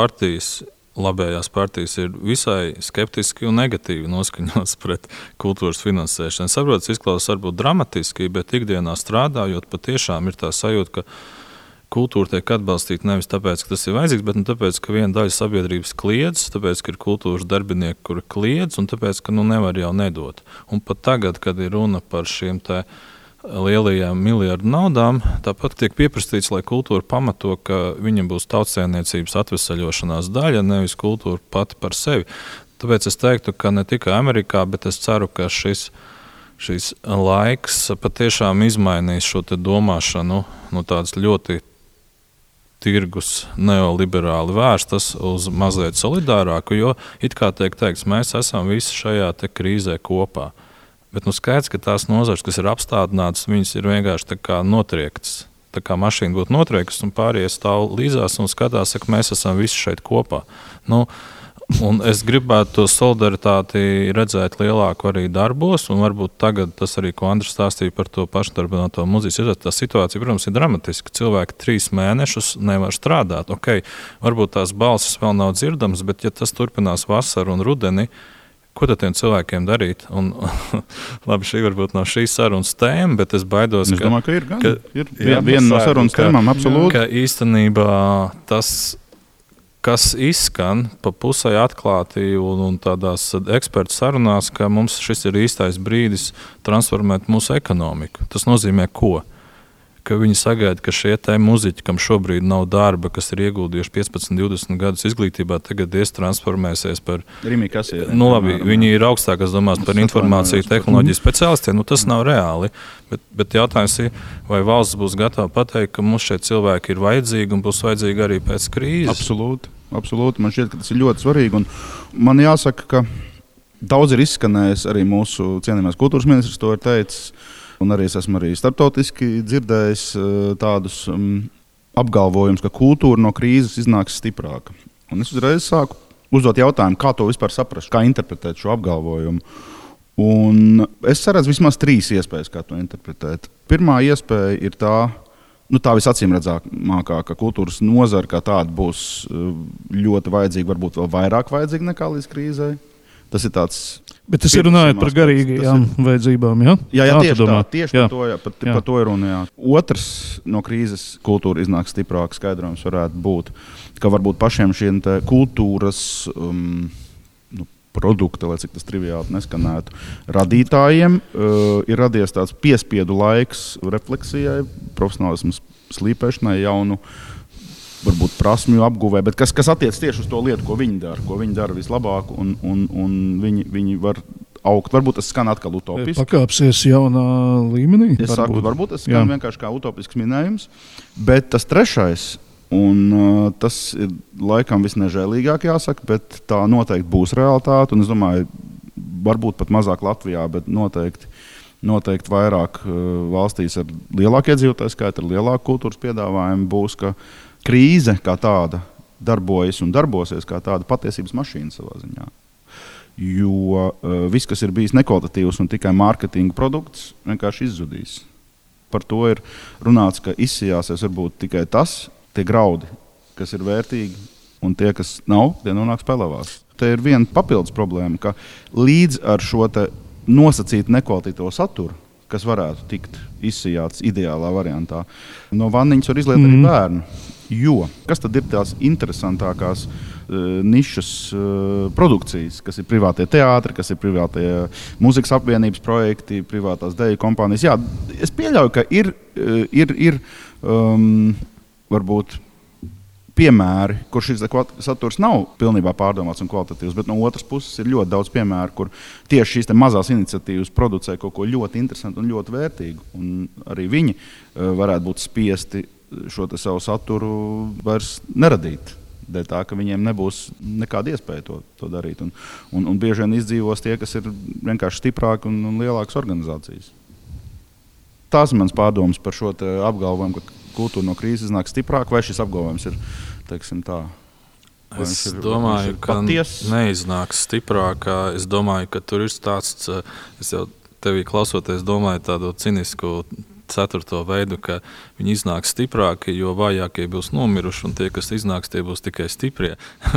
labējās partijas ir visai skeptiski un negatīvi noskaņotas pret kultūras finansēšanu. Saprotu, izklausās varbūt dramatiski, bet ikdienā strādājot, patiešām ir tā sajūta, ka kultūra tiek atbalstīta nevis tāpēc, ka tas ir vajadzīgs, bet tāpēc, ka viena daļa sabiedrības kliedz, tāpēc, ka ir kultūras darbinieki, kuri kliedz, un tāpēc, ka nevar jau nedot. Un pat tagad, kad ir runa par šiem lielajām miljardu naudām, tāpat tiek pieprasīts, lai kultūra pamato, ka viņam būs tautsēmniecības atvesaļošanās daļa, nevis kultūra pati par sevi. Tāpēc es teiktu, ka ne tikai Amerikā, bet es ceru, ka šis laiks patiešām izmainīs šo domāšanu no tādas ļoti tirgus neoliberāli vērstas uz mazliet solidārāku, jo it kā tiek teikts, mēs esam visi šajā krīzē kopā. Bet skaidrs, ka tās nozares, kas ir apstādinātas, viņas ir vienkārši tā kā notriektas. Tā kā mašīna būtu notriektas un pārējie stāv līdzās un skatās, ka mēs esam visi šeit kopā. Un es gribētu to solidaritāti redzēt lielāku arī darbos, un varbūt tagad tas arī, ko Andris stāstīja par to pašnodarbināto mūziķu, tā situācija, protams, ir dramatiska. Cilvēki 3 mēnešus nevar strādāt. Varbūt tās balsis vēl nav dzirdamas, bet ja tas turpinās vasaru un rudeni, ko tad tiem cilvēkiem darīt? Un, labi, šī varbūt nav šīs sarunas tēma, bet es baidos, es domāju, ka ir viena no sarunas tēmām, absolūti. Ka īstenībā tas, kas izskan pa pusē atklāti un tādās ekspertu sarunās, ka mums šis ir īstais brīdis transformēt mūsu ekonomiku. Tas nozīmē ko? Ka viņi sagaida, ka šie muziķi, kam šobrīd nav darba, kas ir ieguldījuši 15, 20 gadus izglītībā, tagad transformēsies par Rimī Kasieri. Viņi ir augstākās domās par informāciju tehnoloģiju speciālistiem. Tas nav reāli. Bet jautājums ir, vai valsts būs gatava pateikt, ka mums šie cilvēki ir vajadzīgi un būs vajadzīgi arī pēc krīzes? Absolūti. Man šķiet, ka tas ir ļoti svarīgi. Un man jāsaka, ka daudz ir izskanējis, arī mūsu cienījamais kultūras ministrs to ir teicis. Un arī es esmu starptautiski dzirdējis tādus apgalvojumus, ka kultūra no krīzes iznāks stiprāka. Un es uzreiz sāku uzdot jautājumu, kā to vispār saprast, kā interpretēt šo apgalvojumu. Un es saredzu vismaz 3 iespējas, kā to interpretēt. Pirmā iespēja ir tā, tā visacīmredzamākā kultūras nozara kā tāda būs ļoti vajadzīga, varbūt vēl vairāk vajadzīga nekā līdz krīzei. Tas ir tāds. Bet tas ir runājot par garīgajām vajadzībām, ja? Jā, tieši par to ir runa. Jā. Otrs no krīzes kultūra iznāk stiprāk skaidrojums varētu būt, ka varbūt pašiem šiem kultūras produkti, lai cik tas triviāli neskanētu, radītājiem ir radies tāds piespiedu laiks refleksijai, profesionālismu slīpēšanai, jaunu varbūt prasmju apguvē, bet kas attiec tieši uz to lietu, ko viņi dara vislabāk, un viņi var augt. Varbūt tas skan atkal utopiski. Pakāpsies jaunā līmenī? Es saku, varbūt tas skan vienkārši kā utopisks minējums, bet tas trešais, un tas ir laikam visnežēlīgāk jāsaka, bet tā noteikti būs realitāte, un es domāju, varbūt pat mazāk Latvijā, bet noteikti vairāk valstīs ar lielāku iedzīvotāju skaitu, ar lielāku kultūras piedāvājumu būs, ka krīze kā tāda darbojas un darbosies kā tāda patiesības mašīna savā ziņā. Jo viss, kas ir bijis nekvalitatīvs un tikai mārketinga produkts, vienkārši izzudīs. Par to ir runāts, ka izsijāsies varbūt tikai tie graudi, kas ir vērtīgi, un tie, kas nav, tie nonāks pelavās. Te ir viena papildus problēma, ka līdz ar šo nosacītu nekvalitatīvo saturu, kas varētu tikt izsijāts ideālā variantā, no vanniņas var izliet arī bērnu. Jo kas tad ir tās interesantākās nišas produkcijas, kas ir privātie teātri, kas ir privātie mūzikas apvienības projekti, privātās deju kompānijas. Jā, es pieļauju, ka ir varbūt piemēri, kur šis saturs nav pilnībā pārdomāts un kvalitatīvs, bet no otras puses ir ļoti daudz piemēru, kur tieši šīs mazās iniciatīvas producē kaut ko ļoti interesantu un ļoti vērtīgu. Un arī viņi varētu būt spiesti šo savu saturu vairs neradīt. Dēļ tā, ka viņiem nebūs nekāda iespēja to darīt. Un bieži vien izdzīvos tie, kas ir vienkārši stiprāki un lielākas organizācijas. Tās ir mans pārdomas par šo apgalvojumu, ka kultūra no krīzes iznāk stiprāk, vai šis apgalvojums ir, teiksim tā? Es domāju, ka neiznāks stiprāk. Es domāju, ka tur ir stāsts, es jau tevī klausoties domāju tādu cinisku ceturto veidu, ka viņi iznāks stiprāki, jo vājākie būs nomiruši, un tie, kas iznāks, tie būs tikai stiprie.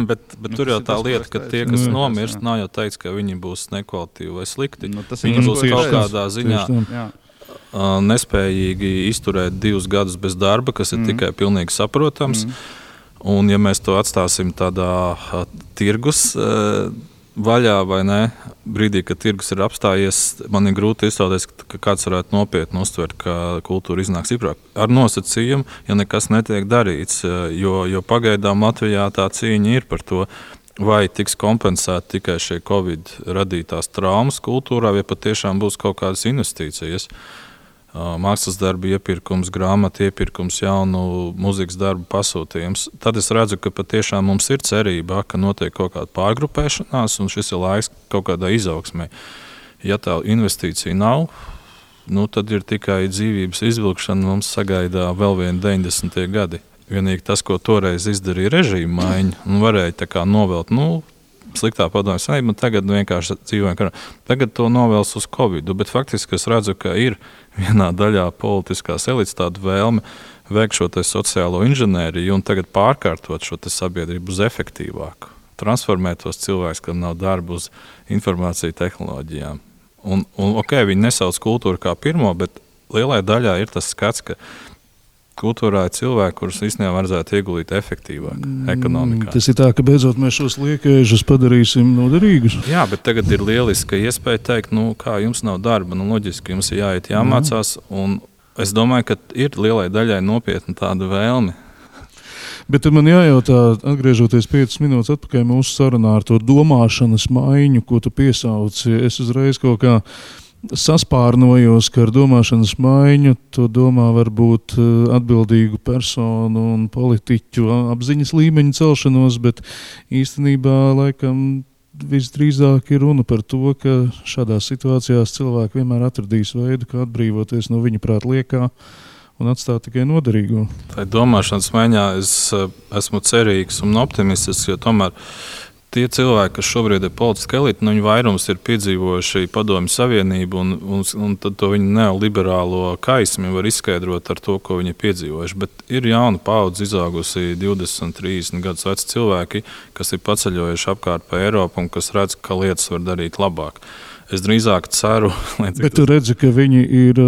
bet tur jau tā lieta, ka tie, kas nomirst, nav jau teikts, ka viņi būs nekvalitīvi vai slikti. Viņi būs kaut kādā ziņā nespējīgi izturēt 2 gadus bez darba, kas ir tikai pilnīgi saprotams. Un ja mēs to atstāsim tādā tirgus vaļā vai ne, brīdī, kad tirgus ir apstājies, man ir grūti iztēloties, ka kāds varētu nopietni uztvert, ka kultūra iznāk stiprāk. Ar nosacījumu, ja nekas netiek darīts, jo pagaidām Latvijā tā cīņa ir par to, vai tiks kompensēta tikai šie Covid radītās traumas kultūrā, vai patiešām būs kaut kādas investīcijas. Mākslas darbu iepirkums, grāmatu iepirkums, jaunu mūzikas darbu pasūtījums. Tad es redzu, ka patiešām mums ir cerība, ka notiek kaut kāda pārgrupēšanās, un šis ir laiks kaut kādai izaugsmei. Ja tā investīcija nav, tad ir tikai dzīvības izvilkšana, mums sagaidā vēl viena 90. gadi. Vienīgi tas, ko toreiz izdarīja režīma maiņa, un varēja tā kā novelt, sliktā padomju savienība, tagad vienkārši dzīvojam karā. Tagad to novēls uz Covid, bet faktiski es redzu, ka ir vienā daļā politiskās elites tāda vēlme veikt šo sociālo inženēriju un tagad pārkārtot šo sabiedrību uz efektīvāku. Transformēt tos cilvēkus, kam nav darba, uz informāciju tehnoloģijām. Un viņi nesauc kultūru kā pirmo, bet lielai daļā ir tas skats, ka kultūrā ir cilvēki, kurus īstenībā vajadzētu ieguldīt efektīvāk ekonomikā. Tas ir tā, ka beidzot mēs šos liekēžus padarīsim noderīgus. Jā, bet tagad ir lieliska iespēja teikt, kā jums nav darba, loģiski jums ir jāiet jāmācās, un es domāju, ka ir lielai daļai nopietna tāda vēlme. Bet man jājautā, atgriežoties 5 minūtes atpakaļ mūsu sarunā ar to domāšanas maiņu, ko tu piesauci, es uzreiz kaut kā saspārnojos, ka ar domāšanas maiņu to domā varbūt atbildīgu personu un politiķu apziņas līmeņa celšanos, bet īstenībā laikam visdrīzāk ir runa par to, ka šādās situācijās cilvēki vienmēr atradīs veidu, kā atbrīvoties no viņa prāt liekā un atstāt tikai noderīgo. Tā domāšanas maiņā es esmu cerīgs un optimistisks, jo tomēr tie cilvēki, kas šobrīd ir politiski elite, viņi vairums ir piedzīvojuši Padomju Savienību, un tad to viņu neoliberālo kaismi var izskaidrot ar to, ko viņi ir piedzīvojuši. Bet ir jauna paudze izaugusi 20, 30 gadus veci cilvēki, kas ir paceļojuši apkārt pa Eiropu un kas redz, ka lietas var darīt labāk. Es drīzāk ceru, bet tu redzi, ka viņi ir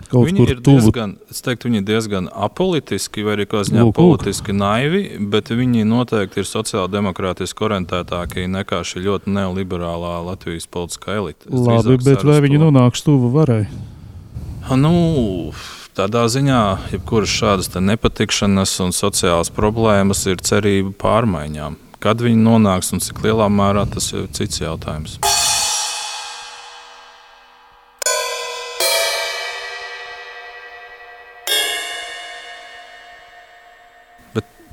kaut viņi kur ir tuvu. Viņi ir diezgan apolitiski vai arī kā ziņā politiski naivi, bet viņi noteikti ir sociāldemokrātiski orientētāki nekā šī ļoti neoliberālā Latvijas politiskā elite. Labi, bet vai viņi nonāks tuvu varai? Tādā ziņā, jebkuras šādas nepatikšanas un sociālas problēmas ir cerība pārmaiņām. Kad viņi nonāks un cik lielā mērā, tas ir cits jautājums.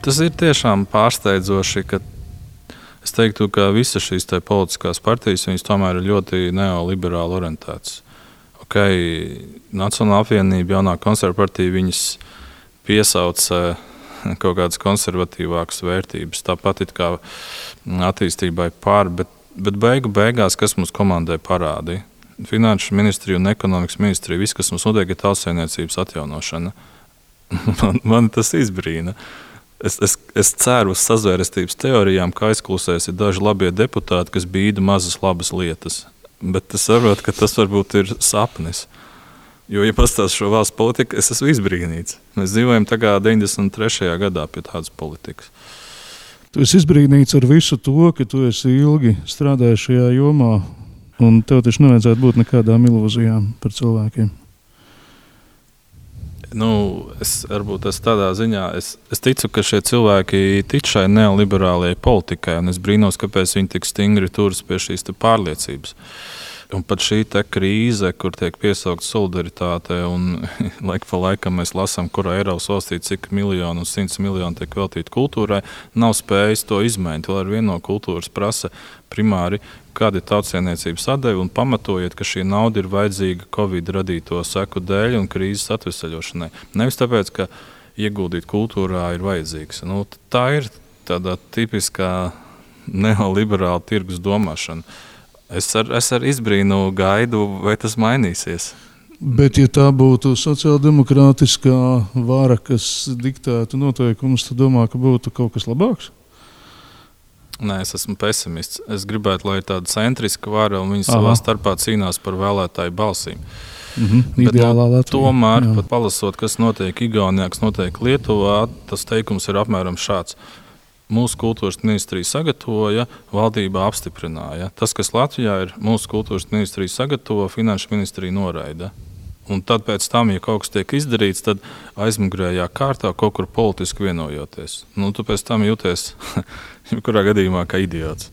Tas ir tiešām pārsteidzoši, ka es teiktu, ka visas šīs politiskās partijas tomēr ir ļoti neoliberāli orientētas. Nacionālā apvienība, jaunā konservatīva partija, viņas piesauc kaut kādas konservatīvākas vērtības, tāpat it kā attīstībai pār, bet beigās, kas mums komandai parādīja? Finanšu ministrija un ekonomikas ministrija, viss, kas mums notiek, ir tautsēmniecības atjaunošana. Man tas izbrīna. Es ceru uz sazvērestības teorijām, ka aizklusēs ir daži labie deputāti, kas bīda mazas labas lietas. Bet es saprotu, ka tas varbūt ir sapnis. Jo, ja pastāst šo valsts politiku, es esmu izbrīnīts. Mēs dzīvojam tā kā 93. gadā pie tādas politikas. Tu esi izbrīnīts ar visu to, ka tu esi ilgi strādājis šajā jomā, un tev taču nevajadzētu būt nekādām ilūzijām par cilvēkiem. Es tādā ziņā es ticu, ka šie cilvēki tic šai neoliberālajai politikai, un es brīnos, kāpēc viņi tik stingri turas pie šīs pārliecības. Un pat šī krīze, kur tiek piesaukta solidaritāte, un laika pa laikam mēs lasām, kurā Eiropas valstī cik miljonu un 100 miljonu tiek veltīti kultūrai, nav spējis to izmainīt. Vēl ar vienu no kultūras prasa primāri, kāda ir tautsēmniecības atdeve, un pamatojiet, ka šī nauda ir vajadzīga Covid radīto seku dēļ un krīzes atvesaļošanai. Nevis tāpēc, ka ieguldīt kultūrā ir vajadzīgs. Tā ir tāda tipiskā neoliberāla tirgus domāšana. Es ar izbrīnu gaidu, vai tas mainīsies. Bet, ja tā būtu sociāldemokrātiskā vara, kas diktētu noteikumus, tad domā, ka būtu kaut kas labāks? Nē, es esmu pesimists. Es gribētu, lai ir tāda centriska vara, un viņi savā starpā cīnās par vēlētāju balsīm. Ideālā Latvija. Tomēr, pat palasot, kas notiek Igaunijā, kas notiek Lietuvā, tas teikums ir apmēram šāds. Mūsu kultūras ministrija sagatavoja, valdība apstiprināja. Tas, kas Latvijā ir, mūsu kultūras ministrija sagatavo, finanšu ministrija noraida. Un tad pēc tam, ja kaut kas tiek izdarīts, tad aizmugurējā kārtā kaut kur politiski vienojoties. Tu pēc tam jūties, jebkurā gadījumā, kā idiots.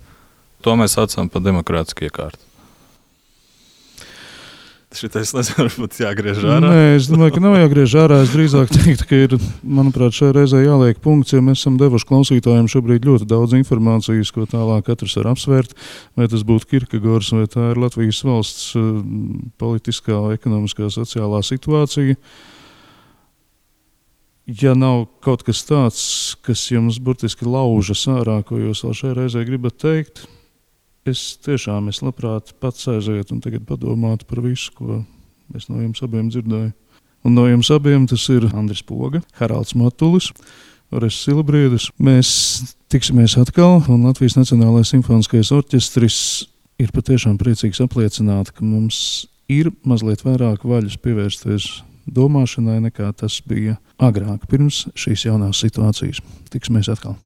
To mēs saucam par demokrātisku iekārtu. Šitais varbūt jāgriež ārā. Nē, es domāju, ka nav jāgriež ārā. Es drīzāk teiktu, ka ir, manuprāt, šai reizē jāliek punkts, jo mēs esam devuši klausītājiem šobrīd ļoti daudz informācijas, ko tālāk katrs var apsvērt. Vai tas būtu Kierkegaards, vai tā ir Latvijas valsts politiskā, ekonomiskā, sociālā situācija. Ja nav kaut kas tāds, kas jums burtiski laužas ārā, ko jūs vēl šai reizē gribat teikt, es labprāt pats aizietu un tagad padomātu par visu, ko es no jums abiem dzirdēju. Un no jums abiem tas ir Andris Poga, Haralds Matulis, Orests Silabriedis. Mēs tiksimies atkal, un Latvijas Nacionālais simfoniskais orķestris ir patiešām priecīgs apliecināt, ka mums ir mazliet vairāk vaļas pievērsties domāšanai, nekā tas bija agrāk, pirms šīs jaunās situācijas. Tiksimies atkal.